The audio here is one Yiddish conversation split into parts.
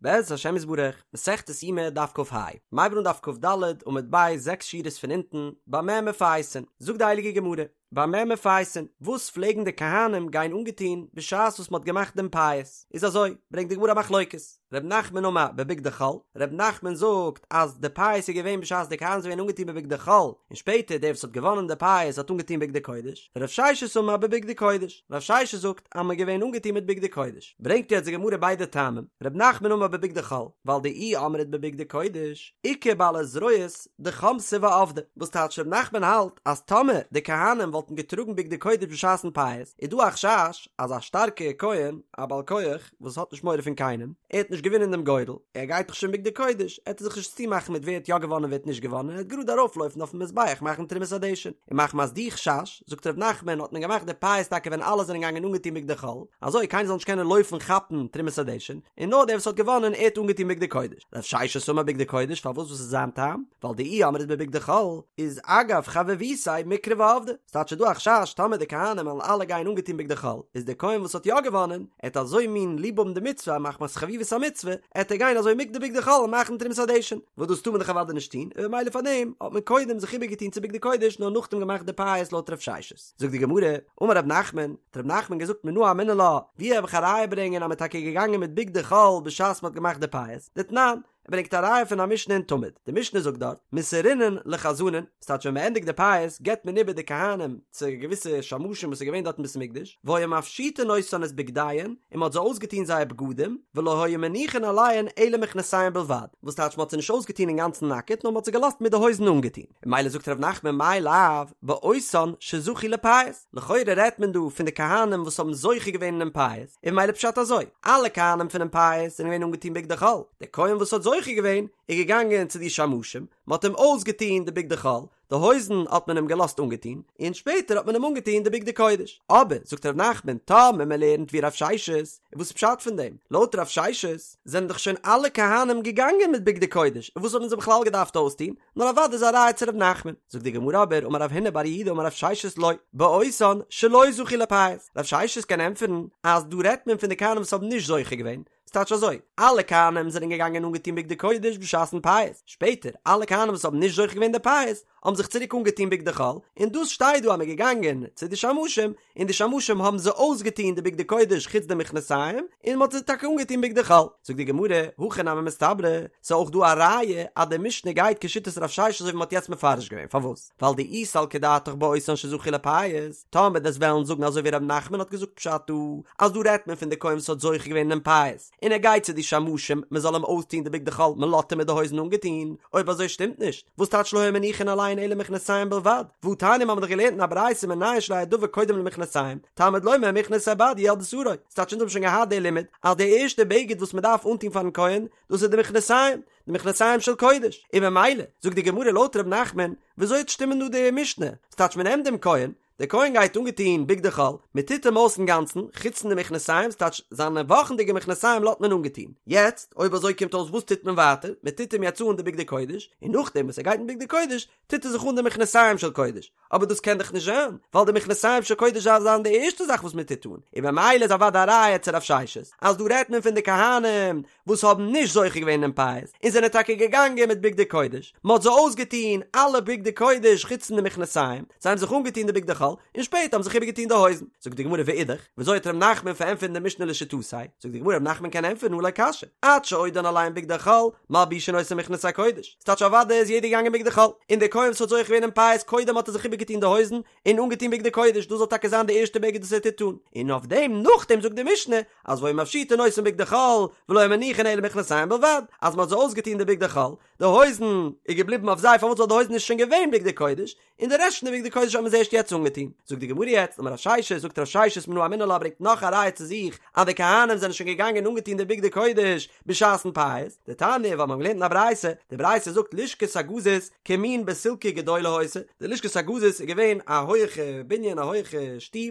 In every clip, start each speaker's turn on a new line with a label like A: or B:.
A: בעז השם יתברך, מסכת יומא דף כ"ה, מ'הייבט אן דף כ"ד עמוד ב' זעקס שורות פון אונטן, במה מפייסין, זאגט די הייליגע גמרא, במה מפייסין, וואס פלעגן די כהנים גיין אנגעטון בשעת וואס מ'האט געמאכט דעם פייס, איז אזוי, ברענגט די גמרא א מחלוקת, ר' נחמן אמר בבגדי חול, ר' נחמן זאגט אז די פייס איז געווען בשעת די כהנים זענען געווען אנגעטון בבגדי חול, און שפעטער דער וואס האט געוואנען די פייס האט אנגעטון בגדי קודש, רב ששת אמר בבגדי קודש, רב ששת זאגט אז מ'איז געווען אנגעטון מיט בגדי קודש. ברענגט יעצט די גמרא ביידע טעמים, ר' נחמן אמר בבגדי חול, ווייל דאי אמרת בבגדי קודש, איכא בעלי זרועות דחמסי ועבדי, וואס טייטש ר' נחמן האלט אז טאמער די כהנים וואלטן געטראגן בגדי קודש בשעת'ן פייס, איז דא א חשש אז א שטארקע כהן, א בעל כח, וואס האט נישט מורא פון קיינעם, ער האט נישט געווינען דעם גורל, ער גייט דאך שוין בגדי קודש, עט ער זיך נישט צומאכן מיט ווער האט יא געוואנען ווער האט נישט געוואנען, ער וועט גראד ארויפלויפן אויפן מזבח מאכן תרומת הדשן, און מחמת די חשש, זאגט ר' נחמן האט מען געמאכט די פייס טאקע ווען אלע זענען געגאנגען אנגעטון בגדי חול, אזוי קיינער זאל נישט קענען לויפן כאפן תרומת הדשן, און נאר דער וואס האט געוואנען ער האט אנגעטון בגדי קודש. רב ששת אמר בגדי קודש פארוואס וואס איז זיין טעם? ווייל דאי אמרת בבגדי חול איז אגב חביבותיה מיקרב ועבדי, ס'טייטש ס'איז דא א חשש טאמער די כהנים וועלן אלע גיין אנגעטון בגדי חול איז דער כהן וואס האט יא געוואנען ער וועט אזוי מין ליב האבן די מצוה מחמת חביבות המצוה עט ער גיין אזוי מיט די בגדי חול און מאכן תרומת הדשן. וואס דאס טאר מען דאך אוודאי נישט טון, און ממילא פאר דעם האט מען קודם זיך איבערגעטון צו בגדי קודש נאר נאכדעם געמאכט די פייס לויט רב ששת. זאגט די גמרא, אמר רב נחמן, האט רב נחמן געזאגט מנא אמינא לה, ווי האב איך א ראיה ברענגען אז מען איז טאקע געגאנגען מיט בגדי חול בשעת מען האט געמאכט די פייס, דתנן, ער ברענגט א ראיה פון א משנה אין תמיד, די משנה זאגט דארט, מסרינן לחזנין, ס'טייטש ווען מען ענדיגט די פייס געבט מען איבער די כהנים צו געוויסע שמשים וואס איז געווען דארט אין בית המקדש, והיו מפשיטין אותן את בגדיהן, און מען האט זיי אויסגעטון זייער בגדים, ולא היו מניחין עליהן אלא מכנסיהן בלבד, וואס טייטש מען האט זיי נישט אויסגעטון אינגאנצן נאקעט נאר מען האט זיי געלאזט מיט די הויזן אנגעטון, און ממילא זאגט ר' נחמן מאי לאו באותן שזכו לפייס, לכאורה רעדט מען דא פון די כהנים וואס האבן זוכה געווען אינעם פייס, און ממילא פשט אזוי, אלע כהנים פונעם פייס זענען געווען אנגעטון בגדי חול, דער כהן וואס האט זוכה געווען איז געגאנגען צו די שמשים, מען האט אים אויסגעטון די בגדי חול, די הויזן האט מען אים געלאזט אנגעטון, און שפעטער האט מען אים אנגעטון די בגדי קודש. אבער, זאגט ר' נחמן, טאמער מען לערנט ווי רב ששת, איז וואס פשט פון דעם? לויט רב ששת זענען דאך שוין אלע כהנים געגאנגען מיט בגדי קודש, און וואס האט מען זיי בכלל געדארפט אויסטון? נאר אוודאי איז א ראיה צו ר' נחמן. זאגט די גמרא אבער, אמר רב הונא בר יהודה אמר רב ששת לא, באותן שלא זכו לפייס. רב ששת קען ענטפערן אז דא רעדט מען פון די כהנים וואס האבן נישט זוכה געווען, ס'טייטש אזוי, אלע כהנים זענען געגאנגען אנגעטון בגדי קודש בשעת'ן פייס, שפעטער, אלע כהנים וואס האבן נישט זוכה געווען די פייס, האבן זיך צוריק אנגעטון בגדי חול, און דאס שטייט דא אז מ'איז געגאנגען צו די שמשים, און די שמשים האבן זיי אויסגעטון די בגדי קודש חוץ די מכנסיים, און מ'האט זיי טאקע אנגעטון בגדי חול. זאגט די גמרא, הכי נמי מסתברא, ס'איז אויך דא א ראיה אז די משנה גייט כשיטת רב ששת אזוי ווי מ'האט יעצט מפרש געווען, פארוואס? ווייל דאי סלקא דעתך באותן שזכו לפייס, טאמער דו'סט וועלן זאגן אזוי ווי ר' נחמן האט געזאגט פשט דא, אז דא רעדט מען פון די כהן וואס האט זוכה געווען אינעם פייס, און ער גייט צו די שמשים מען זאל אים אויסטוהן די בגדי חול מען לאזט אים מיט די הויזן אנגעטוהן, אויב אזוי שטימט נישט, וואס טייטש לא היו מניחין עליהן אלא מכנסיים בלבד, והתניא מ'האמיר דאך געלערנט אין א ברייתא מנין שלא יהא דבר קודם למכנסיים, תלמוד לומר מכנסי בד יהיו על בשרו, ס'טייטש אונז האבן שוין געהאט די לימוד אז די ערשטע בגד וואס מען דארף אנטוהן פארן כהן דאס איז די מכנסיים, די מכנסיים של קודש, און ממילא, זאגט די גמרא לויט ר' נחמן, וויאזוי וועט שטימען דא די משנה? ס'טייטש מען נעמט דעם כהן, דער כהן גייט אנגעטון בגדי חול, מען טוט אים אויס אינגאנצן, חוץ פון די מכנסיים, ס'טייטש זיינע וואכנדיגע מכנסיים לאזט מען אנגעטון. יעצט, אויב אזוי קומט אויס וואס טוט מען ווייטער? מען טוט אים יעצט אן די בגדי קודש, און נאכדעם וואס ער גייט אין בגדי קודש, טוט ער זיך אן די מכנסיים של קודש. אבער דאס קען דאך נישט זיין, ווייל די מכנסיים של קודש דארף זיין די ערשטע זאך וואס מען טוט אן, און ממילא איז אוודאי א ראיה צו רב ששת, אז דא רעדט מען פון די כהנים וואס האבן נישט זוכה געווען אינעם פייס, און זענען טאקע געגאנגען מיט בגדי קודש, מען האט זיי אויסגעטון אלע בגדי קודש חוץ פון די מכנסיים, זיי האבן זיך אנגעטון די בגדי חול, און שפעטער האבן זיך איבערגעטון די הויזן. זאגט די גמרא ואידך, וויאזוי וועט ר' נחמן פארענטפערן די משנה לשיטתו? זאגט די גמרא ר' נחמן קען ענטפערן הא לא קשיא, עד שעודן עליהן בגדי חול, מלבישין אותן מכנסי קודש, ס'טייטש אוודאי איז יעדער געגאנגען בגדי חול, און דער כהן וואס האט זוכה געווען אין פייס קודם האט ער זיך איבערגעטון די הויזן און אנגעטון בגדי קודש, דאס זאל טאקע זיין די ערשטע בגד וואס ער טוט אן, און אויף דעם נאכדעם זאגט די משנה אז והיו מפשיטין אותן בגדי חול ולא היו מניחין אלא מכנסיים בלבד, אז מ'האט זיי אויסגעטון די בגדי חול, די הויזן איז געבליבן אויף זיי פארוואס ווייל די הויזן איז שוין געווען בגדי קודש, און די רעשט פון די בגדי קודש האט מען זיי ערשט יעצט אנגעטון. זאגט די גמרא יעצט, אמר רב ששת, זאגט רב ששת מנא אמינא לה ברענגט נאך א ראיה צו זיך אז די כהנים זענען שוין געגאנגען אנגעטון די בגדי קודש בשעת'ן פייס, דתניא ווייל מיר האבן געלערנט אין א ברייתא, די ברייתא זאגט לשכת הגזית כמין בסילקי גדולה היתה, די לשכת הגזית איז געווען א הויעכע בנין א הויעכע שטוב,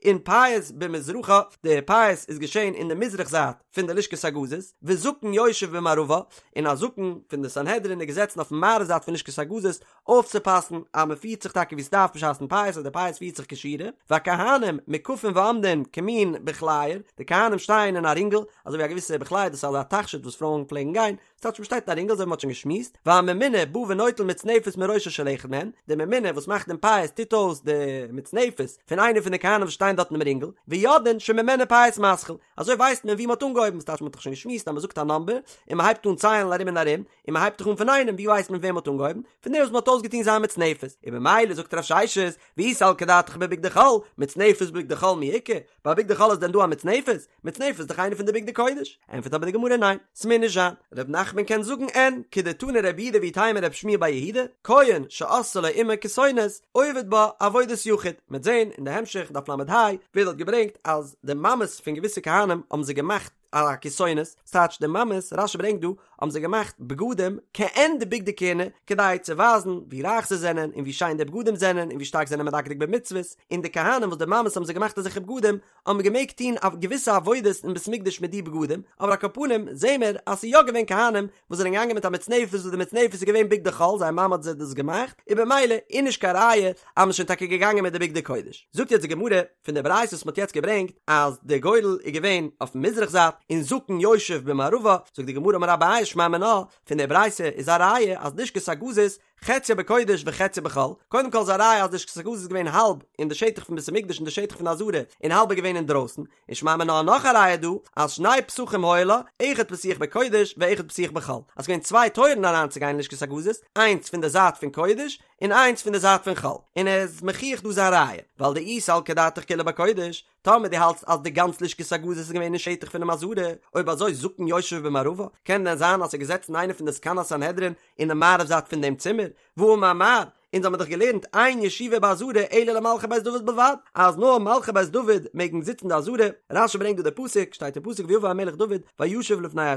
A: און פייס במזרחה, די פייס איז געשען אין די מזרח זייט פון די לשכת הגזית, וזקן יושב במערבה, און א זקן פון די סנהדרין איז געזעצן אויפן מערב זייט פון לשכת הגזית, אויפצופאסן אז מען פירט זיך טאקע ווי ס'דארף בשעת'ן פייס אז די פייס. פירט זיך כשורה, והכהנים מוקפין ועומדין כמין בכלייר, די כהנים שטייען אין א רינגל, אזוי ווי א געוויסע בכלייר דאס איז אזא תכשיט וואס פרויען פלעגן גיין, ס'טייטש מ'שטייט אין א רינגל אזוי ווי מ'האט שוין געשמועסט, והממונה בא ונוטל מצנפת מראשו של אחד מהם, דער ממונה וואס מאכט דעם פייס טוט אויס די מצנפת פון איינער פון די כהנים וואס שטייען דארט אינעם רינגל, ויודעין שממנו פייס מתחיל, אזוי ווייסט מען ווי מ'האט אנגעהויבן, ס'טייטש מ'האט דאך שוין געשמועסט אז מ'זאגט א נאמבער און מ'הייבט אן ציילן ארום און ארום, און מ'הייבט דאך אן פון איינעם, ווי ווייסט מען וועם מ'האט אנגעהויבן? פון דעם וואס מ'האט אויסגעטון זיין מצנפת, און במילא זאגט רב ששת, ואי סלקא דעתך בבגדי חול, מצנפת בבגדי חול מי איכא? ביי בגדי חול איז דען דא א מצנפת? מצנפת איז דאך איינע פון די בגדי קודש. ענטפערט אבער די גמרא ניין, ס'מוז נישט זיין. ר' נחמן קען זאגן אין, כדתני רב יהודה ואיתימא רב שמואל בר יהודה, כהן שעשאה לו אמו כתונת, עובד בה עבודת יחיד. מ'עט זען אין די המשך דף ל"ה ווערט דארט געברענגט אז די מאמעס פון געוויסע כהנים האבן זיי געמאכט א כתונת, ס'טייטש די מאמעס, רש"י ברענגט דא, האבן זיי געמאכט בגדים כעין די בגדי כהונה, כדי צו ווייזן ווי רייך זיי זענען און ווי שיין די בגדים זענען און ווי שטארק זיי זענען מדקדק במצוות, און די כהנים וואס די מאמעס האבן זיי געמאכט אזעלכע בגדים, האבן געמעגט טון א געוויסע עבודות אין בית מקדש מיט די בגדים, אבער על כל פנים זעהן מיר אז ס'איז יא געווען כהנים וואס זענען געגאנגען מיט א מצנפת וואס די מצנפת איז געווען בגדי חול, זייער מאמע האט זיי דאס געמאכט, און במילא איז נישט קיין ראיה אז מ'איז שוין טאקע געגאנגען מיט די בגדי קודש. זאגט יעצט די גמרא פון די ברייתא וואס מ'האט יעצט געברענגט אז די גורל איז געווען אויפן מזרח זייט און זקן יושב במערבה, זאגט די גמרא אמר אביי שמע מינה, פון די ברייתא איז א ראיה אז לשכת הגזית חציה בקודש וחציה בחול, קודם כל איז א ראיה אז לשכת הגזית איז געווען האלב אין די שטח פון בית המקדש און די שטח פון די עזרה און האלב איז געווען אינדרויסן, און שמע מינה נאך א ראיה דא אז שני פתחים היו לה, אחד פתוח בקודש ואחד פתוח בחול, אז ס'געווען צוויי טויערן אריינצוגיין אין לשכת הגזית, איינס פון די זייט פון קודש און איינס פון די זייט פון חול, און ער איז מוכיח דא זיין ראיה, ווייל דאי סלקא דעתך כולה בקודש, טאמער דו האלטסט אז די גאנץ לשכת הגזית איז געווען אין שטח פונעם עזרה, אויב אזוי זקן יושב במערבה, קען דען זיין אז ס'איז געזעצן איינער פון די זקני הסנהדרין אינעם מערב זייט פון דעם צימער? והאמר מר, אונז האמיר דאך געלערנט אין ישיבה בעזרה אלא למלכי בית דוד בלבד, אז נאר מלכי בית דוד מעגן זיצן אין די עזרה, רש"י ברענגט דא די פסוק, שטייט אין פסוק ויבא המלך דוד וישב לפני ה',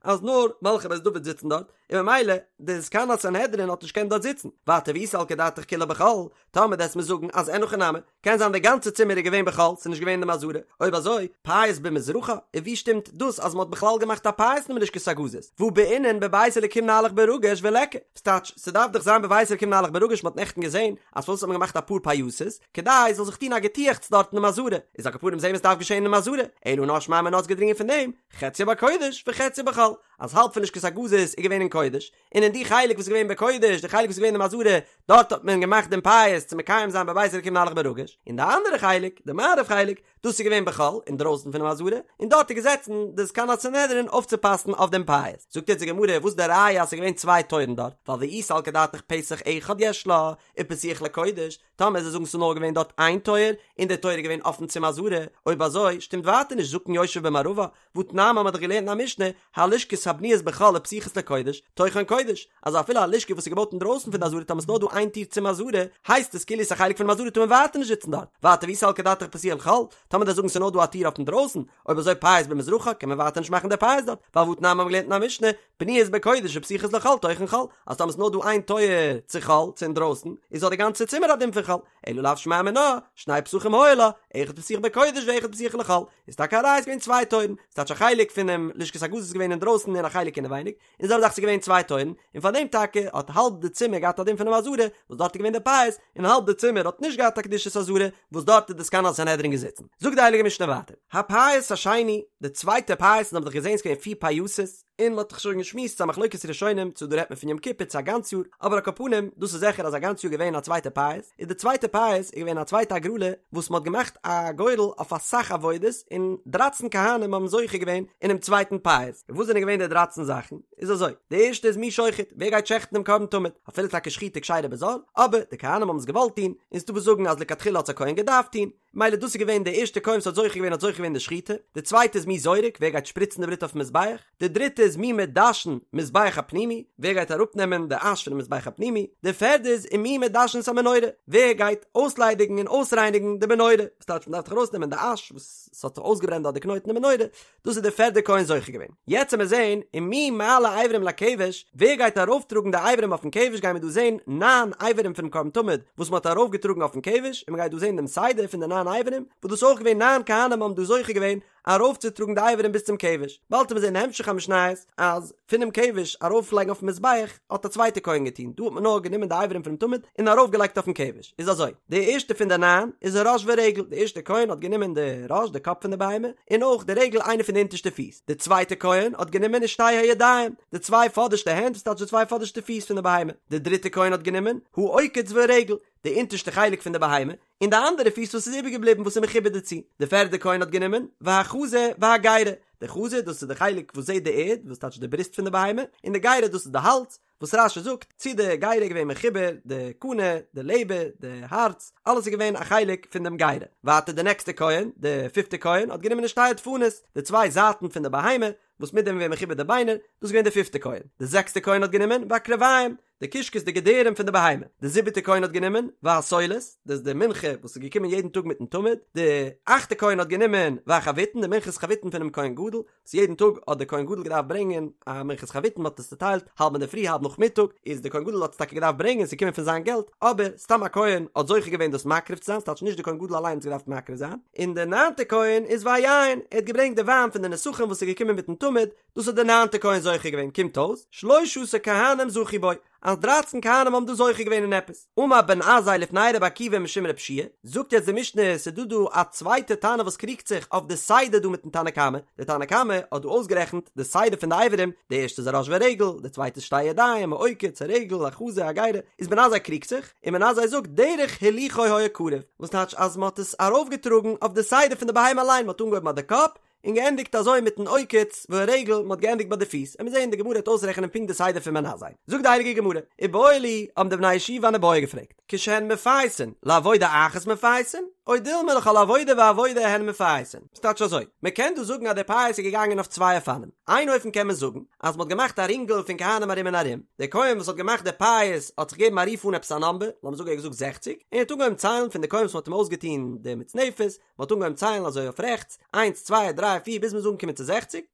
A: אז נאר מלכי בית דוד זיצן דארט, און ממילא די זקן הסנהדרין האט נישט געקענט דארט זיצן, ווייטער ואי סלקא דעתך כולה בחול, טאמער דו וועסט מיר זאגן אז אין הכי נמי, קען זיין די גאנצע צימער איז געווען בחול, ס'איז נישט געווען אין דעם עזרה, אויב אזוי, פייס במזרחה, און ווי שטימט דאס אז מ'האט בכלל געמאכט א פייס אינעם לשכת הגזית, והא בעינן בבית אלקים נהלך ברגש וליכא, ס'טייטש, ס'דארף דאך זיין בבית אלקים נהלך ברגש מ'האט נעכטן געזען אז פארוואס האט מען געמאכט אפאר פייסות, כדי ס'זאל זיך טון א געטועכץ דארט אינעם עזרה, איז על כל פנים זעהן מיר ס'דארף געשען אינעם עזרה, אלא נאר שמע מינה איז געדרינגען פון דעם, חציה בקודש וחציה בחול, אז האלב פון לשכת הגזית איז געווען אין קודש, און אין די חלק וואס איז געווען בקודש, די חלק וואס איז געווען אין עזרה, דארט האט מען געמאכט דעם פייס צו מקיים זיין בבית אלקים נהלך ברגש, און די אנדערע חלק, די מערב חלק, דאס איז געווען בחול, אינדרויסן פונעם עזרה, און דארט איז געזעצן די זקן הסנהדרין אויפצופאסן אויף דעם פייס. זאגט יעצט די גמרא, וואס איז די ראיה אז ס'איז געווען צוויי טויערן דארט? ווייל ואי סלקא דעתך פתח אחד יש לה, ופתוח לקודש, טאמער זיי זאגן ס'איז נאר געווען דארט איין טויער, און דער טויער איז געווען אפן צום עזרה, אויב אזוי שטימט ווייטער נישט זקן יושב במערבה, והתנן האמיר דאך געלערנט אין א משנה, הלשכות הבנויות בחול ופתוחות לקודש, תוכן קודש, אז אפילו א לשכה וואס איז געבויט אינדרויסן פון די עזרה טאמער ס'איז נאר דא איין טיר צום עזרה, הייסט עס כאילו ס'איז א חלק פונעם עזרה טאר מען ווייטער נישט זיצן דארט, ווייטער ואי סלקא דעתך פתוח לחול, טאמער זיי זאגן ס'איז נאר דא א טיר אויף אינדרויסן, אויב אזוי פייס במזרחה קען מען ווייטער נישט מאכן די פייס דארט, ווייל והתנן האמיר געלערנט אין א משנה, בנויות בקודש ופתוחות לחול תוכן חול, אז טאמער ס'איז נאר דא איין טויער צו חול, צו אינדרויסן, איז האט די גאנצע צימער א דין פון חול, אלא לאו שמע מינה, שני פתחים היו לה, אחד פתוח בקודש ואחד פתוח לחול, איז טאקע א ראיה ס'איז געווען צוויי טויערן, ס'טייטש א חלק פונעם לשכת הגזית איז געווען אינדרויסן און א חלק אינעווייניג, און זעלבע זאך ס'איז געווען צוויי טויערן, און פאר דעם טאקע האט האלב די צימער געהאט א דין פונעם עזרה, וואס דארט איז געווען די פייס, און האלב די צימער האט נישט געהאט א קדושת עזרה, וואס דארט איז די זקן הסנהדרין געזיצן. זאגט די הייליגע משנה ווייטער, הפייס השני, די צווייטע פייס, אונז האבן דאך געזען ס'איז געווען פיר פייסות, און מ'האט דאך שוין געשמועסט ס'איז א מחלוקת ראשונים צו דא רעדט מען פון יום כיפור צו א גאנץ יאר, אבער על כל פנים דאס איז זיכער אז א גאנץ יאר געווען א צווייטע פייס, איז די צווייטע פייס איז געווען א צווייטע הגרלה וואס מ'האט געמאכט א גורל אויף אסאך עבודות און דרייצן כהנים האבן זוכה געווען אינעם צווייטן פייס, און וואס זענען געווען די דרייצן זאכן? איז אזוי, די ערשטע איז מי שוחט, ווער גייט שעכטן דעם קרבן תמיד, אפילו טאקע שחיטה כשרה בזר, אבער די כהנים האבן עס געוואלט טון, און ס'דא וואס זאגן אז לכתחילה האט עס א כהן געדארפט טון, מילא דאס איז געווען די ערשטע כהן וואס האט זוכה געווען האט זוכה געווען די שחיטה, די צווייטע איז מי זורק, ווער גייט שפריצן די בלוט אויפן מזבח, די דריטע איז מי מדשן מזבח הפנימי, ווער גייט אראפנעמען די אש פונעם מזבח הפנימי, די פערדע איז ומי מדשן את המנורה, ווער גייט אויסליידיגן און אויסרייניגן די מנורה, וואס טייטש מען דארף דאך ארויסנעמען די אש וואס ס'האט זיך אויסגעברענט דארט די קנויט אין די מנורה, דאס איז די פערדע כהן זוכה געווען. יעצט עמיר זעהן ומי מעלה אברים לכבש, ווער גייט ארויפטראגן די אברים אויפן כבש גיימיר דא זעהן ניין אברים פונעם קרבן תמיד וואס מען האט ארויפגעטראגן אויפן כבש, און מען גייט דא זעהן דעם סדר פון די ניין אברים, וואס דאס איז אויך געווען ניין כהנים האבן דא זוכה געווען ארויפצוטראגן די אברים ביז צום כבש. באלד עמיר זעהן אין המשך המשניות אז פונעם כבש ארויפלייגן אויפן מזבח האט א צווייטע כהן געטון, דא האט מען נאר גענומען די אברים. פונעם תמיד און ארויפגעלייגט אויפן כבש, איז אזוי, די ערשטע פון די ניין איז הראש ורגל, די ערשטע כהן האט גענומען די ראש, די קאפ פון די בהמה, און אויך די רגל איינע פון די אונטערשטע פיס, די צווייטע כהן האט גענומען ושתי הידיים, די צוויי פאדערשטע הענט, וואס טייטש די צוויי פאדערשטע פיס פון די בהמה, די דריטע כהן האט גענומען העוקץ והרגל, די אונטערשטע חלק פון די בהמה, און די אנדערע פיס וואס איז איבערגעבליבן וואס איז מחובר דערצו. די פערדע כהן האט גענומען, והחזה והגרה, די חזה דאס איז די חלק וואס זעט די ערד, וואס טייטש די בריסט פון די בהמה, און די גרה דאס איז די האלז, וואס רש"י זאגט, צו די גרה איז געווען מחובר, די קנה, די לעבער, די הארץ, אלעס איז געווען א חלק פון דעם גרה. ווייטער די נעקסטע כהן, די פיפטע כהן, האט גענומען ושתי הדפנות, די צוויי זייטן פון די בהמה, וואס מיט דעם איז געווען מחובר די ביינער, דאס איז געווען די פיפטע כהן. די זעקסטע כהן האט גענומען, והקרביים, די קישקעס די געדערים פון די בהמה, די זיבעטע כהן האט גענומען, והסולת, דאס איז די מנחה וואס איז געקומען יעדן טאג מיטן תמיד, די אכטע כהן האט גענומען, והחביתין, די מנחת חביתין פונעם כהן גדול, וואס יעדן טאג האט דער כהן גדול געדארפט ברענגען א מנחת חביתין, מען האט עס צוטיילט האלב אינדערפרי האלב נאכמיטאג, איז דער כהן גדול האט עס טאקע געדארפט ברענגען, ס'איז געקומען פון זיין געלט, אבער סתם א כהן האט זוכה געווען דאס מקריב צו זיין, ס'טייטש נישט דער כהן גדול אליין האט עס געדארפט מקריב זיין, און דער ניינטער כהן איז והיין, ער האט געברענגט די וויין פון די נסכים וואס איז געקומען מיטן תמיד, דאס האט דער ניינטער כהן זוכה געווען, קומט אויס, שלשה עשר כהנים זכו בו, אז דרייצן כהנים האבן דא זוכה געווען אין עפעס. אמר בן עזאי לפני רבי עקיבא משום רבי יהושע, זאגט יעצט די משנה, ס'איז דא דא א צווייטע תנא וואס קריגט זיך אויף די סדר דא מיטן תנא קמא, די תנא קמא האט דא אויסגערעכנט די סדר פון די אברים, די ערשטע איז הראש והרגל, די צווייטע איז שתי ידיים, העוקץ, הרגל, החזה, הגרה, איז בן עזאי קריגט זיך, און בן עזאי זאגט דרך הילוכו היה קרב, וואס טייטש אז מ'האט עס ארויפגעטראגן אויף די סדר פון די בהמה אליין, מ'האט אנגעהויבן ביי די קאפ, און געענדיגט אזוי מיטן עוקץ והרגל, מען האט געענדיגט ביי די פיס, עמיר זעהן די גמרא וועט אויסרעכענען פונקט די סדר פון בן עזאי. זאגט די הייליגע גמרא, איבעיא להו, האבן די בני ישיבה אן איבעיא געפרעגט, כשהן מפייסין, לעבודה אחת מפייסין, או דילמא לכל עבודה ועבודה הן מפייסין? ס'טייטש אזוי, מען קען דא זאגן אז די פייס איז געגאנגען אויף צוויי אופנים, איין אופן קען מען זאגן, אז מען האט געמאכט א רינגל פון כהנים ארום און ארום, דער כהן וואס האט געמאכט די פייס האט זיך געגעבן א רוף אן עפעס א נאמבער, לאמיר זאגן ער האט געזאגט זעכציג, און ער האט אנגעהויבן ציילן פון די כהן וואס מען האט אים אויסגעטון די מצנפת, מען האט אנגעהויבן ציילן אזוי אויף רעכטס, איינס צוויי דריי פיר ביז מען איז אנגעקומען צו זעכציג,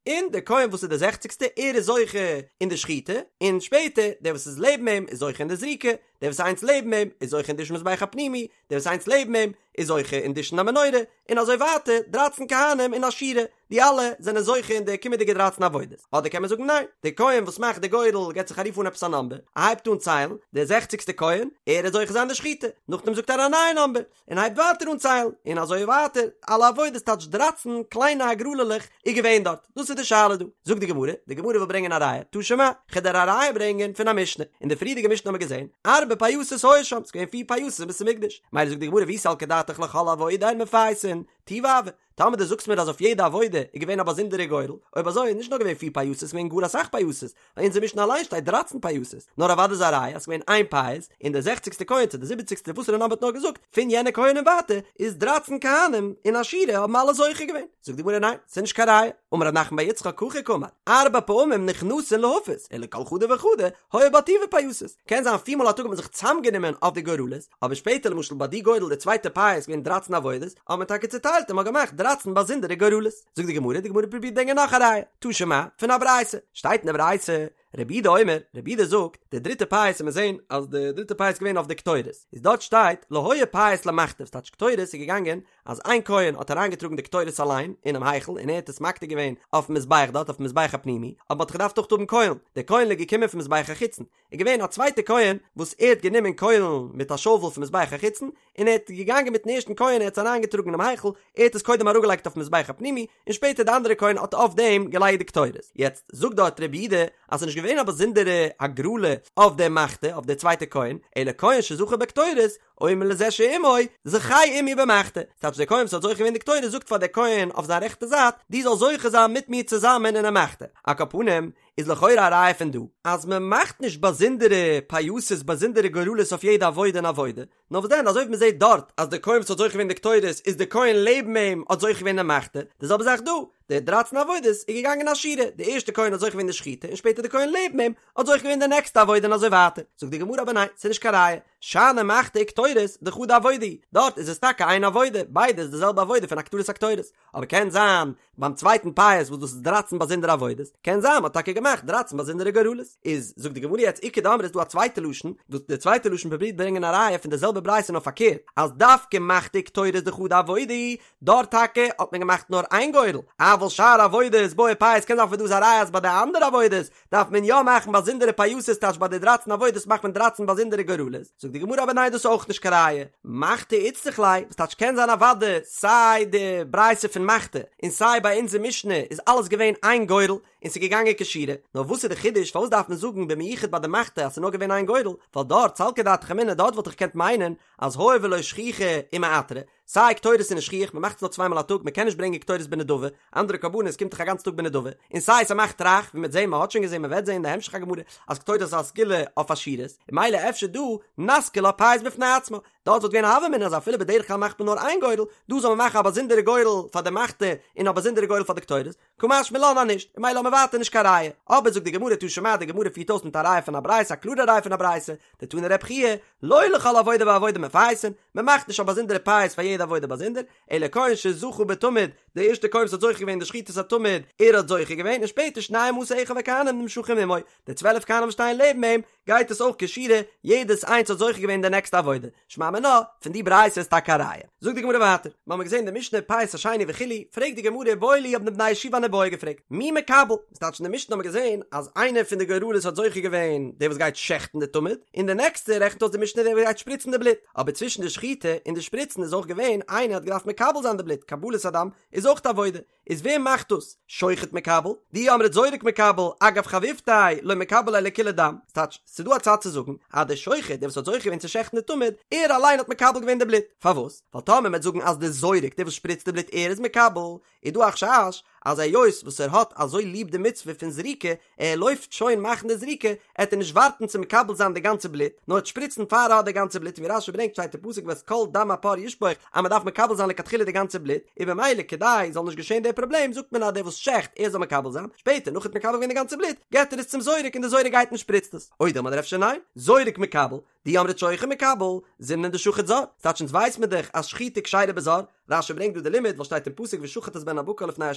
A: און דער כהן וואס איז דער זעכציגסטע ער איז זוכה אין די שחיטה, און שפעטער דער וואס איז לעבן אים איז זוכה אין די זריקה, דער וואס איז איינס לעבן אים איז זוכה אין דישון מזבח הפנימי, דער וואס איז איינס לעבן אים איז זוכה אין דישון המנורה, און אזוי ווייטער, דרייצן כהנים אין א שורה, די אלע זענען זוכה אין די קומענדיגע דרייצן עבודות. אדער קען מען זאגן ניין, דער כהן וואס מאכט די גורל געבט זיך א רוף אן עפעס א נאמבער, ער הייבט אן ציילן, דער זעכציגסטע כהן, ער איז זוכה זיין די שחיטה, נאכדעם זאגט ער א נייע נאמבער, און הייבט ווייטער אן ציילן, און אזוי ווייטער, אלע עבודות טייטש דרייצן קליינע הגרלה'לעך איז געווען דארט, דאס איז די שאלה דא. זאגט די גמרא, די גמרא וויל ברענגען א ראיה, תא שמע, כ'וועל דיר א ראיה ברענגען פון א משנה, אין די פריערדיגע משנה האבן מיר געזען, ארבע פייסות היו שם, ס'איז געווען פיר פייסות אין בית המקדש, מילא זאגט די גמרא ואי סלקא דעתך לכל עבודה הן מפייסין, טובא הוי, טאמער דו זאגסט מיר אז אויף יעדע עבודה איז געווען א באזונדערע גורל, אויב אזוי איז נישט נאר געווען פיר פייסות, ס'איז געווען גאר אסאך פייסות, אין אונזער משנה אליין שטייט דרייצן פייסות, נאר אוודאי איז א ראיה אז ס'איז געווען איין פייס, און דער זעכציגסטער כהן צו דער זיבעציגסטער וואסערע נאמבער האט נאר געזאגט, פון יענע כהן און ווייטער, איז דרייצן כהנים אין א שורה האבן אלע זוכה געווען. זאגט די גמרא ניין, ס'איז נישט קיין ראיה. אמר רב נחמן בר יצחק הכי קאמר, ארבע פעמים נכנסין להפיס, ולכל חדא וחדא היו בה טובא פייסות. קען זיין פיר מאל א טאג האט מען זיך צוזאמגענומען אויף די גורלות, אבער שפעטער למשל ביי די גורל די צווייטע פייס איז געווען דרייצן עבודות, האט מען טאקע צוטיילט און מ'האט געמאכט דרייצן באזונדערע גורלות. זאגט די גמרא, די גמרא פרובירט ברענגען נאך א ראיה, תא שמע, פון א ברייתא, שטייט אין די ברייתא, רבי יהודה אומר, רבי יהודה זאגט, די דריטע פייס וועט מען זען אז די דריטע פייס איז געווען אויף די קטורת, איז דארט שטייט, לא היה פייס למחתה, ס'טייטש קטורת איז געגאנגען אז איין כהן האט אריינגעטראגן די קטורת אליין אינעם היכל און ער האט עס מקטיר געווען אויפן מזבח דארט אויפן מזבח הפנימי, אבער מ'האט געדארפט אויך האבן קוילן, די קוילן איז געקומען פון מזבח החיצון, איז געווען א צווייטע כהן וואס ער האט גענומען קוילן מיט א שאוול פון מזבח החיצון און ער האט געגאנגען מיטן ערשטן כהן ער האט עס אריינגעטראגן אינעם היכל ער האט עס קודם אראפגעלייגט אויפן מזבח הפנימי און שפעטער די אנדערע כהן האט אויף דעם געלייגט די קטורת יעצט זאגט דארט רבי יהודה אז ס'איז נישט געווען א באזונדערע הגרלה אויף די מחתה אויף די צווייטע כהן אלא כהן שזכה בקטורת אומר לזה שעמו זכה עמי במחתה ס'טייטש דער כהן וואס האט זוכה געווען די קטורת זאגט פאר דער כהן אויף זיין רעכטע זייט דו זאלסט זוכה זיין מיט מיר צוזאמען אינעם מחתה על כל פנים איז לכאורה א ראיה פון דא אז מען מאכט נישט באזונדערע פייסות באזונדערע גורלות אויף יעדע עבודה און עבודה, נאר וואס דען אזוי ווי מען זעט דארט אז דער כהן וואס האט זוכה געווען די קטורת איז דער כהן לעבן אים האט זוכה געווען די מחתה, די זעלבע זאך דא, די דרייצן עבודות איז געגאנגען א שורה, די ערשטע כהן האט זוכה געווען די שחיטה און שפעטער די כהן לעבן אים האט זוכה געווען די נעקסטע עבודה און אזוי ווייטער, זאגט די גמרא אבער ניין ס'איז נישט קיין ראיה. שאני מחתה וקטורת דחדא עבודה היא, דארט איז עס טאקע איין עבודה, ביידע איז די זעלבע עבודה פון הקטרת הקטורת, אבער קען זיין ביים צווייטן פייס וואס דאס איז דרייצן באזונדערע עבודות, קען זיין מ'האט טאקע געמאכט דרייצן באזונדערע גורלות. איז זאגט די גמרא יעצט איכא דאמרי איז דא א צווייטע לשון, וואס די צווייטע לשון פרובירט ברענגען א ראיה פון די זעלבע ברייתא נאר פארקערט, אז דווקא מחתה וקטורת דחדא עבודה היא, דארט טאקע האט מען געמאכט נאר איין גורל, אבל שאר עבודות בעי פייס קען זיין פון דא איז א ראיה אז ביי די אנדערע עבודות דארף מען יא מאכן באזונדערע פייסות טייטש ביי די דרייצן עבודות מאכט מען דרייצן באזונדערע גורלות, זאגט די גמרא אבער ניין דאס איז אויך נישט קיין ראיה, מחתה איצטריך ליה, וואס טייטש קען זיין אוודאי סיי די ברייתא פון מחתה און סיי ביי אונזער משנה איז אלעס געווען איין גורל און ס'איז געגאנגען כשורה, נאר וואס איז די חידוש פארוואס דארף מען זאגן במיוחד ביי די מחתה אז ס'איז נאר געווען איין גורל, ווייל דארט סלקא דעתך אמינא דארט וואלט איך געקענט מיינען אז הואיל ולא שכיחא ומעתרא, סיי קטורת איז נישט שכיח, מ'מאכט עס נאר צוויי מאל א טאג, מ'קען נישט ברענגען קטורת בנדבה, אנדערע קרבנות קומט דאך א גאנץ טאג בנדבה, און סיי ס'מאכט רייך, ווי מ'וועט זען, מ'האט שוין געזען, מ'וועט זען אין די המשך הגמרא, אז קטורת איז א סגולה אויף עשירות, און ממילא אפשר דא, נסכא לה פייס בפני עצמה, דארט וואלט געווען א הוה אמינא אז אפילו בדרך כלל מאכט מען נאר איין גורל, דא זאל מען מאכן א באזונדערע גורל פאר די מחתה און א באזונדערע גורל פאר די קטורת, קא משמע לן אז נישט, און ממילא האבן מיר ווייטער נישט קיין ראיה. אבער זאגט די גמרא תא שמע, די גמרא פירט אויס מיט א ראיה פון א ברייתא, א קלארע ראיה פון א ברייתא, דתני רבי חייא, לא לכל עבודה ועבודה מפייסין, מען מאכט נישט א באזונדערע פייס פאר יעדע עבודה באזונדער, אלא כהן שזכה בתמיד, דער ערשטער כהן וואס האט זוכה געווען אין די שחיטת התמיד, ער האט זוכה געווען, און שפעטער שנים עשר אחיו הכהנים נמשכים עמו, די צוועלף כהנים וואס שטייען לעבן אים, גייט עס אויך כשורה, יעדעס איינס האט זוכה געווען די נעקסטע עבודה, שמע מינה, פון די ברייתא איז טאקע א ראיה. זאגט די גמרא ווייטער, מיר האבן געזען די משנה פייס השני וכו', פרעגט די גמרא איבעיא להו האבן די בני ישיבה אן איבעיא געפרעגט, מי מקבל? ס'טייטש אין די משנה האבן מיר געזען אז איינער פון די גורלות האט זוכה געווען דער וואס גייט שעכטן די תמיד, און די נעקסטע רעכנט אויס די משנה דער וואס גייט שפריצן די בלוט, אבער צווישן די שחיטה און די שפריצן איז אויך געווען איינער האט געדארפט מקבל זיין די בלוט, קבלת הדם איז אויך א עבודה, איז ווער מאכט דאס? שוחט מקבל? דאי אמרת זורק מקבל, אגב חביבתיה, לא מקבל ליה לכוליה דם. ס'טייטש, ס'איז דא א צד צו זאגן, אז דער שוחט, דער וואס האט זוכה געווען צו שעכטן די תמיד, ער אליין האט מקבל געווען די בלוט. פארוואס? ווייל טאמער מ'וועט זאגן אז דער זורק, דער וואס שפריצט די בלוט, ער איז מקבל, איז דא א חשש, אז היות וואס ער האט אזוי ליב די מצוה פון זריקה, ער לויפט שוין מאכן די זריקה, עט ער נישט ווארטן צו מקבל זיין די גאנצע בלוט, נאר עט שפריצן פאר ער האט די גאנצע בלוט, און ווי רש"י ברענגט שטייט אין פסוק ואת כל דם הפר ישפוך אז מען דארף מקבל זיין לכתחילה די גאנצע בלוט, און במילא כדי זאל נישט געשען דער פראבלעם זאגט מען אז דער וואס שעכט ער זאל מקבל זיין, שפעטער נאך ער האט מקבל געווען די גאנצע בלוט געט ער עס צום זורק און די זורק גייט און שפריצט עס, או דילמא אדער אפשר ניין, זורק מקבל, דאי אמרת שוחט מקבל, זימנין דשחט זר, ס'טייטש אונז ווייס מיר דאך אז שחיטה כשרה בזר, רש"י ברענגט דא די לימוד ווייל שטייט אין פסוק ושחט את בן הבקר לפני ה'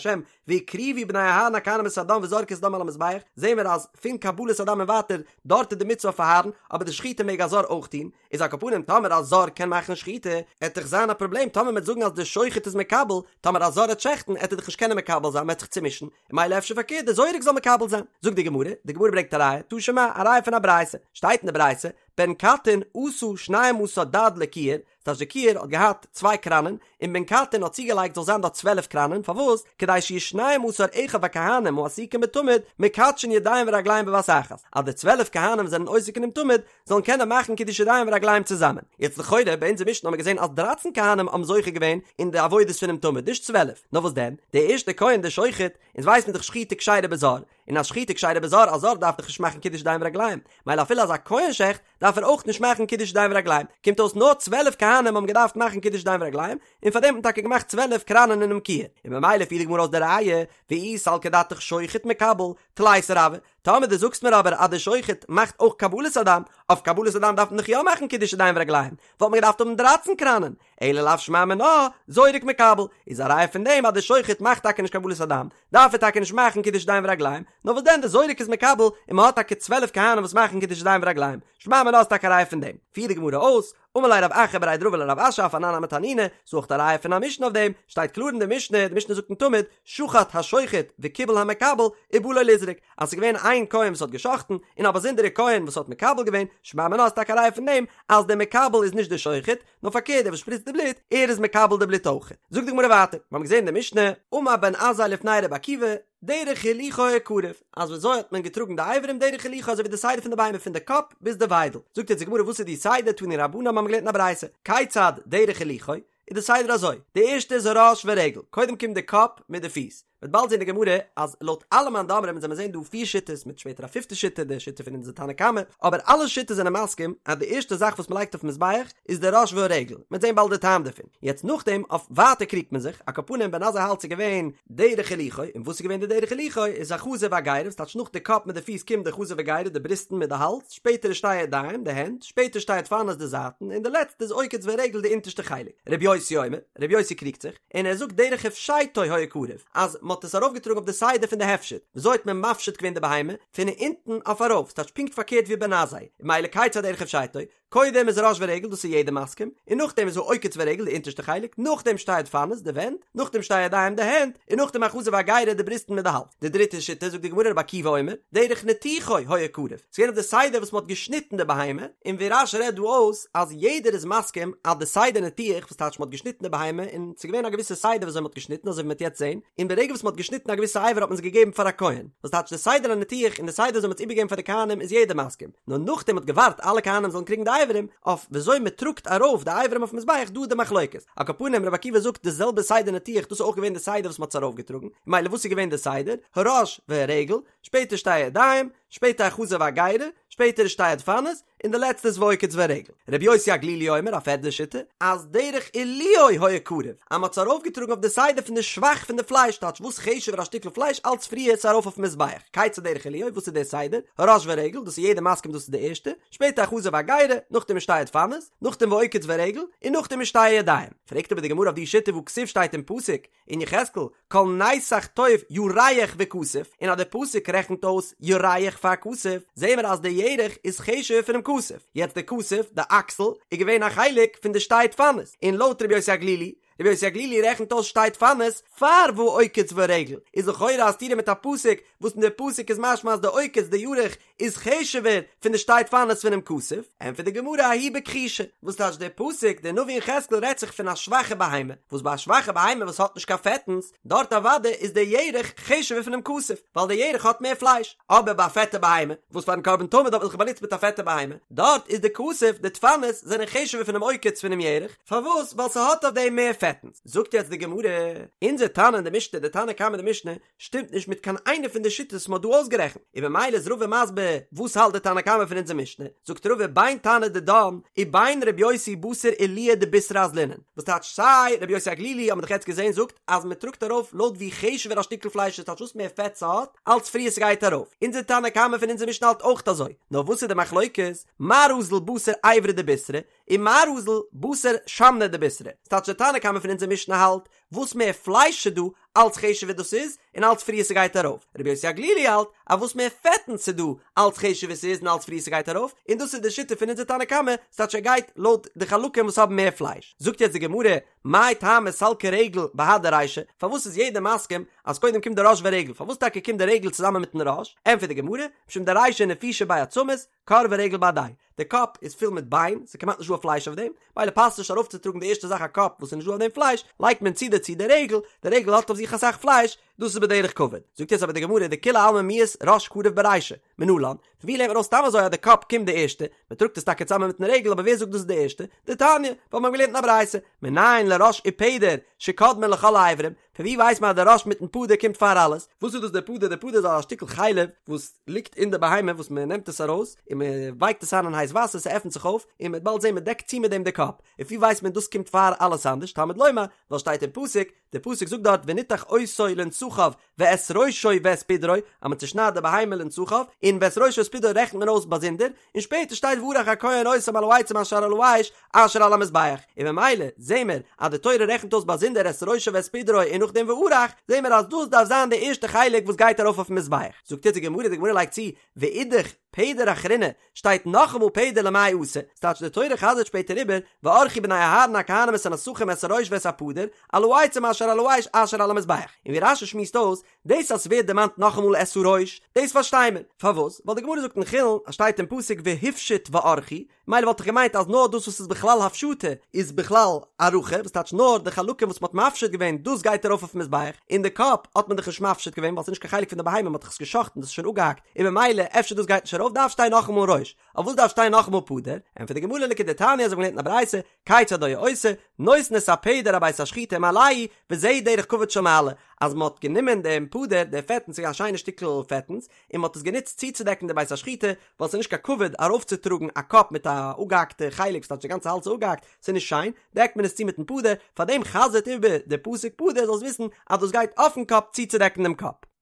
A: והקריבו בני אהרן הכהנים את הדם וזרקו את הדם על המזבח, זעהן מיר אז פון קבלת הדם און ווייטער דארט איז די מצוה אויף אהרן, אבער די שחיטה מעג א זר אויך טון, איז על כל פנים טאמער א זר קען מאכן שחיטה, עט דאך זיין א פראבלעם טאמער מ'עט זאגן אז די שוחט איז מקבל, טאמער א זר עט שעכטן עט ער דאך נישט קענען מקבל זיין מ'עט זיך צומישן, און ממילא אפשר פארקערט די זורק זאל מקבל זיין. זאגט די גמרא, די גמרא ברענגט א ראיה, תא שמע, א ראיה פון א ברייתא, שטייט אין די ברייתא, בן קטין עשה שנים עשר דד לכיור, ס'טייטש די כיור האט געהאט צוויי קראנען, און בן קטין האט צוגעלייגט זאל זיין דארט 12 קראנען, פארוואס? כדי שיהו שנים עשר אחיו הכהנים העסוקים בתמיד מקדשין ידיים ורגליים בבת אחת, אז די 12 כהנים וואס זענען עוסק אינעם תמיד זאלן קענען מאכן קידוש ידיים ורגליים צוזאמען. יעצט לכאורה ביי אונזער משנה האבן מיר געזען אז דרייצן כהנים האבן זוכה געווען אין די עבודות פונעם תמיד, נישט 12, נאר וואס דען? דער ערשטער כהן דער שוחט, אונז ווייסן מיר דאך שחיטה כשרה בזר, און אז שחיטה כשרה בזר, א זר דארף דאך נישט מאכן קידוש ידיים ורגליים, מילא אפילו אז א כהן שעכט, דארף ער אויך נישט מאכן קידוש ידיים ורגליים, קומט אויס נאר 12 כהנים האבן געדארפט מאכן קידוש ידיים ורגליים, און פאר דעם האט מען טאקע געמאכט 12 קראנען אינעם כיור, און ממילא פירט די גמרא אויס די ראיה, ואי סלקא דעתך שוחט מקבל, תליסר הוו, טאמער דו זאגסט מיר אבער אז דער שוחט מאכט אויך קבלת הדם, אויף קבלת הדם דארף מען דאך יא מאכן קידוש ידיים ורגליים, וואלט מען געדארפט האבן דרייצן קראנען, אלא לאו שמע מינה, זורק מקבל, איז א ראיה פון דעם אז דער שוחט מאכט טאקע נישט קבלת הדם, דארף ער טאקע נישט מאכן קידוש ידיים ורגליים, נאר וואס דען דער זורק איז מקבל, און מען האט טאקע 12 כהנים וואס מאכן קידוש ידיים ורגליים, שמע מינה איז טאקע א ראיה פון דעם. פירט די גמרא אויס, אמר ליה רב אחא בריה דרבא לרב אשי אף אנן נמי תנינא, ס'איז אויך א ראיה פון א משנה אויף דעם, שטייט קלאר אין די משנה, די משנה זאגט אין תמיד, שחט השוחט וקיבל המקבל, ובא לו לזרוק, אז ס'איז געווען איין כהן וואס האט גע'שחט'ן, און א באזונדערע כהן וואס האט מקבל געווען, שמע מינה איז טאקע א ראיה פון דעם, אז דער מקבל איז נישט דער שוחט, נאר פארקערט דער וואס שפריצט די בלוט, ער איז מקבל די בלוט אויך. זאגט די גמרא ווייטער, מיר האבן געזען אין די משנה, אמר בן עזאי לפני רבי עקיבא, דרך הילוכו הקרב, אז ווי אזוי האט מען געטראגן די אברים דרך הילוכו אזוי ווי די סדר פון די בהמה פון די קאפ ביז די וויידל, זאגט יעצט די גמרא וואס איז די סדר, תנו רבנן מיר האבן געלערנט אין א ברייתא, כיצד דרך הילוכו, איז די סדר אזוי, די ערשטע איז הראש ורגל, קודם קומט די קאפ מיט די פיס. מ'וועט באלד זען אין די גמרא אז לויט אלע מאן דאמרים אונז וועלן זען דא פיר שיטות מיט שפעטער א פיפטע שיטה די שיטה פון אונזער תנא קמא, אבער אלע שיטות זענען מסכים אז די ערשטע זאך וואס מ'לייגט אויפן מזבח איז די ראש והרגל, מ'וועט זען באלד די טעם דערפון, יעצט נאכדעם אויף ווייטער קריגט מען זיך, על כל פנים בן עזאי האלט ס'איז געווען דרך הילוכו, און וואס איז געווען די דרך הילוכו איז החזה והגרה, ס'טייטש נאך די קאפ מיט די פיס קומט די חזה והגרה די בריסטן מיט די האלז, שפעטער איז שתי ידיים די הענט, שפעטער שתי דפנות די זייטן, און די לעצטע איז עוקץ ורגל די אונטערשטע חלק. רבי יוסי אומר, רבי יוסי קריגט זיך, און ער זאגט דרך הפשטו היה קרב, אז מען האט עס ארויפגעטראגן אויף די סדר פון די הפשט, וויאזוי האט מען מפשיט געווען די בהמה? פון אונטן אויף ארויף, ס'טייטש פונקט פארקערט ווי בן עזאי, ממילא כיצד דרך הפשטו, קודם איז ראש ורגל דאס איז יעדער מסכים, און נאכדעם איז העוקץ ורגל די אונטערשטע חלק, נאכדעם שתי דפנות די ווענט, נאכדעם שתי ידיים די הענט, און נאכדעם החזה והגרה די בריסטן מיט די האלז. די דריטע שיטה זאגט די גמרא רבי עקיבא אומר, דרך ניתוחו היה קרב, ס'איז געווען אויף די סדר וואס מ'האט געשניטן די בהמה, און ווי רש"י רעדט דא אויס אז יעדער איז מסכים אז די סדר ניתוח וואס טייטש מ'האט געשניטן די בהמה און ס'איז געווען א געוויסע סדר וויאזוי מ'האט געשניטן אזוי ווי מ'וועט יעצט זען, און ברגע וואס מ'האט געשניטן א געוויסע אבר האט מען עס געגעבן פאר א כהן, וואס טייטש די סדר הניתוח און די סדר וויאזוי מ'האט עס איבערגעגעבן פאר די כהנים איז יעדער מסכים, נאר נאכדעם מ'האט געווארט אלע כהנים זאלן קריגן די אברים, אויף וויאזוי מ'טראגט ארויף די אברים אויפן מזבח דא איז די מחלוקת. על כל פנים רבי עקיבא זאגט די זעלבע סדר ניתוח דאס איז אויך געווען די סדר וואס מ'האט עס ארויפגעטראגן, ממילא וואס איז געווען די סדר? הראש והרגל, שפעטער שתי ידיים, שפעטער החזה והגרה, שפעטער שתי הדפנות, און די לעצטע איז ועוקץ ורגל. רבי יוסי הגלילי אומר, א פערדע שיטה, אז דרך עילויו היה קרב, אז מ'האט עס ארויפגעטראגן אויף די סדר פון די שבח פון די פלייש, טייטש וואס חשוב'ער א שטיקל פלייש אלץ פריער איז עס ארויף אויפן מזבח, כיצד דרך עילויו, וואס איז דער סדר? הראש והרגל, דאס איז יעדער מסכים דאס איז די ערשטע, שפעטער החזה והגרה, נאכדעם שתי הדפנות, נאכדעם ועוקץ ורגל, און נאכדעם איז שתי ידיים. פרעגט אבער די גמרא אויף די שיטה והכתיב שטייט אין פסוק אין יחזקאל כל נתח טוב ירך וכתף, און אז די פסוק רעכנט אויס ירך פאר כתף, זעהן מיר אז די ירך איז חשוב'ער פונעם כתף, יעצט די כתף, די אקסל, איז געווען א חלק פון די שתי דפנות, און לויט רבי יוסי הגלילי, רבי יוסי הגלילי רעכנט אויס שתי דפנות פאר והעוקץ והרגל, איז לכאורה א סתירה מיט א פסוק וואס אין די פסוק איז משמע אז די עוקץ די ירך איז חשוב'ער פון די שתי דפנות פונעם כתף, ענטפערט די גמרא ההיא בכחושה, וואס טייטש דער פסוק, דער נביא יחזקאל רעדט זיך פון א שוואכע בהמה, וואס ביי א שוואכע בהמה וואס האט נישט קיין פעטנס, דארט אוודאי איז דער ירך חשוב'ער פונעם כתף, ווייל דער ירך האט מער פלייש, אבער ביי א פעטע בהמה, וואס פארן קרבן תמיד האט מען זיך באנוצט מיט א פעטע בהמה, דארט איז די כתף, די דפנות, זענען חשוב'ער פונעם עוקץ פונעם ירך, פארוואס? ווייל ס'האט אויף דעם מער פעטנס. זאגט יעצט די גמרא, אונזער תנא אין די משנה, די תנא קמא אין די משנה, שטימט נישט מיט קיין איינע פון די שיטות וואס מ'האט דא אויסגערעכנט, און במילא איז רבא מסביר וואס האלט די תנא קמא פון אונזער משנה, זאגט רבא בין תנא דידן ובין ר' יוסי בתר עילויא דבישרא אזלינן, וואס טייטש סיי ר' יוסי הגלילי האט מען דאך יעצט געזען זאגט אז מ'טראגט ארויף לויט ווי חשוב'ער א שטיקל פלייש איז טייטש וואס מער פעט ס'האט אלץ פריער ס'גייט ארויף, אונזער תנא קמא פון אונזער משנה האלט אויך אזוי, נאר וואס איז די מחלוקת, מר אזיל בתר איברא דבישרא, ומר אזיל בתר שמנא דבישרא, ס'טייטש די תנא קמא פון אונזער משנה האלט וואס מער פלייש ס'דא, אלץ חשוב'ער דאס איז, און אלץ פריער ס'גייט ארויף. רבי יוסי הגלילי האלט, אז וואס מער פעטן ס'דא, אלץ חשוב'ער ס'איז און אלץ פריער ס'גייט ארויף, און דאס איז די שיטה פון אונזער תנא קמא, ס'טייטש ער גייט לויט די חלקים וואס האבן מער פלייש. זאגט יעצט די גמרא, מאי טעמא סלקא רגל בהדי רישא, פארוואס איז יעדער מסכים אז קודם קומט די ראש ורגל, פארוואס טאקע קומט די רגל צוזאמען מיטן ראש? ענטפערט די גמרא, משום דרישא נפישא ביה עצמות, כור ורגל בהדיה די קאפ איז פול מיט ביין, ס'איז כמעט נישט דא א פלייש אויף דעם, מילא פאסט נישט ארויפצוטראגן די ערשטע זאך א קאפ וואס איז נישט דא אויף דעם פלייש, לייגט מען צו דערצו די רגל, די רגל האט אויף זיך אסאך פלייש, דאס איז בדרך כבוד. זאגט יעצט אבער די גמרא דכולי עלמא מיהת ראש קריב ברישא, מנלן, פון ווי לערנט מען ארויס סתם אזוי אז די קאפ קומט די ערשטע, מען טראגט עס טאקע צוזאמען מיטן רגל אבער ווער זאגט דאס איז די ערשטע? דתניא, ווייל מיר האבן געלערנט אין א ברייתא, מנין לראש ופדר שקודמין לכל האיברים, פון ווי ווייסט מען אז די ראש מיטן פדר קומט פאר אלעס? וואס איז דאס די פדר? די פדר איז א שטיקל חלב וואס ליגט אין די בהמה וואס מען נעמט עס ארויס און מען ווייקט עס איין אין הייס וואסער ס'עפנט זיך אויף און מען וועט באלד זען מען דעקט צו מיט דעם די קאפ, און פון ווי ווייסט מען דאס קומט פאר אלעס אנדערש? תלמוד לומר, ווייל שטייט אין פסוק, די פסוק זאגט דארט ונתח אותו לנתחיו ואת ראשו ואת פדרו, אז מען צושניידט די בהמה לנתחיו, און ואת ראשו ואת פדרו רעכנט מען אויס באזונדער, און שפעטער שטייט וערך הכהן אותם על העצים אשר על האש אשר על המזבח, און ממילא זעהן מיר אז די תורה רעכנט אויס באזונדער את ראשו ואת פדרו און נאכדעם וערך, זעהן מיר אז דאס דארף זיין די ערשטע חלק וואס גייט ארויף אויפן מזבח. זאגט יעצט די גמרא, די גמרא לייגט צו, ואידך פדר אחרינא, שטייט נאכאמאל פדר למאי אתא, ס'טייטש די תורה חזר'ט שפעטער איבער, וערכו בני אהרן הכהנים את הנתחים את הראש ואת הפדר, על העצים אשר על האש אשר על המזבח. און ווי רש"י שמועסט אויס, דאס אז ס'ווערט דערמאנט נאכאמאל את הראש, דאס פארשטיי מיר. פארוואס? ווייל די גמרא זאגט אין חולין אז שטייט אין פסוק והפשיט וערכו, מילא וואלט איך געמיינט אז נאר דאס וואס איז בכלל הפשטה איז בכלל ארכה, וואס טייטש נאר די חלקים וואס מ'האט מפשיט געווען דאס גייט ארויף אויפן מזבח, און די קאפ האט מען דאך נישט מפשיט געווען ווייל ס'איז נישט קיין חלק פון די בהמה מ'האט דאך עס גע'שחט'ן דאס איז שוין אפגעהאקט, און ממילא אפשר דאס גייט נישט ארויף דארף שטיין נאכאמאל ראש, אויף וואס דארף שטיין נאכאמאל פדר? ענטפערט די גמרא לכדתניא אזוי ווי מ'לערנט אין א ברייתא, כיצד היה עושה, נותן את הפדר אבית השחיטה ומעלהו, וזה דרך כבוד של מעלה, אז מ'האט גענומען דעם פדר, די פעטנס ס'איז א שיינע שטיקל פעטנס, און מ'האט עס גענוצט צוצודעקן די בית השחיטה, ווייל ס'איז נישט קיין כבוד ארויפצוטראגן א קאפ מיט א אפגעהאקטע חלק, ס'טייטש די גאנצע האלז איז אפגעהאקט, ס'איז נישט שיין, דעקט מען עס צו מיטן פדר, פארדעם חזר'ט איבער די פסוק פדר זאלסט וויסן אז דאס גייט אויפן קאפ צוצודעקן דעם קאפ.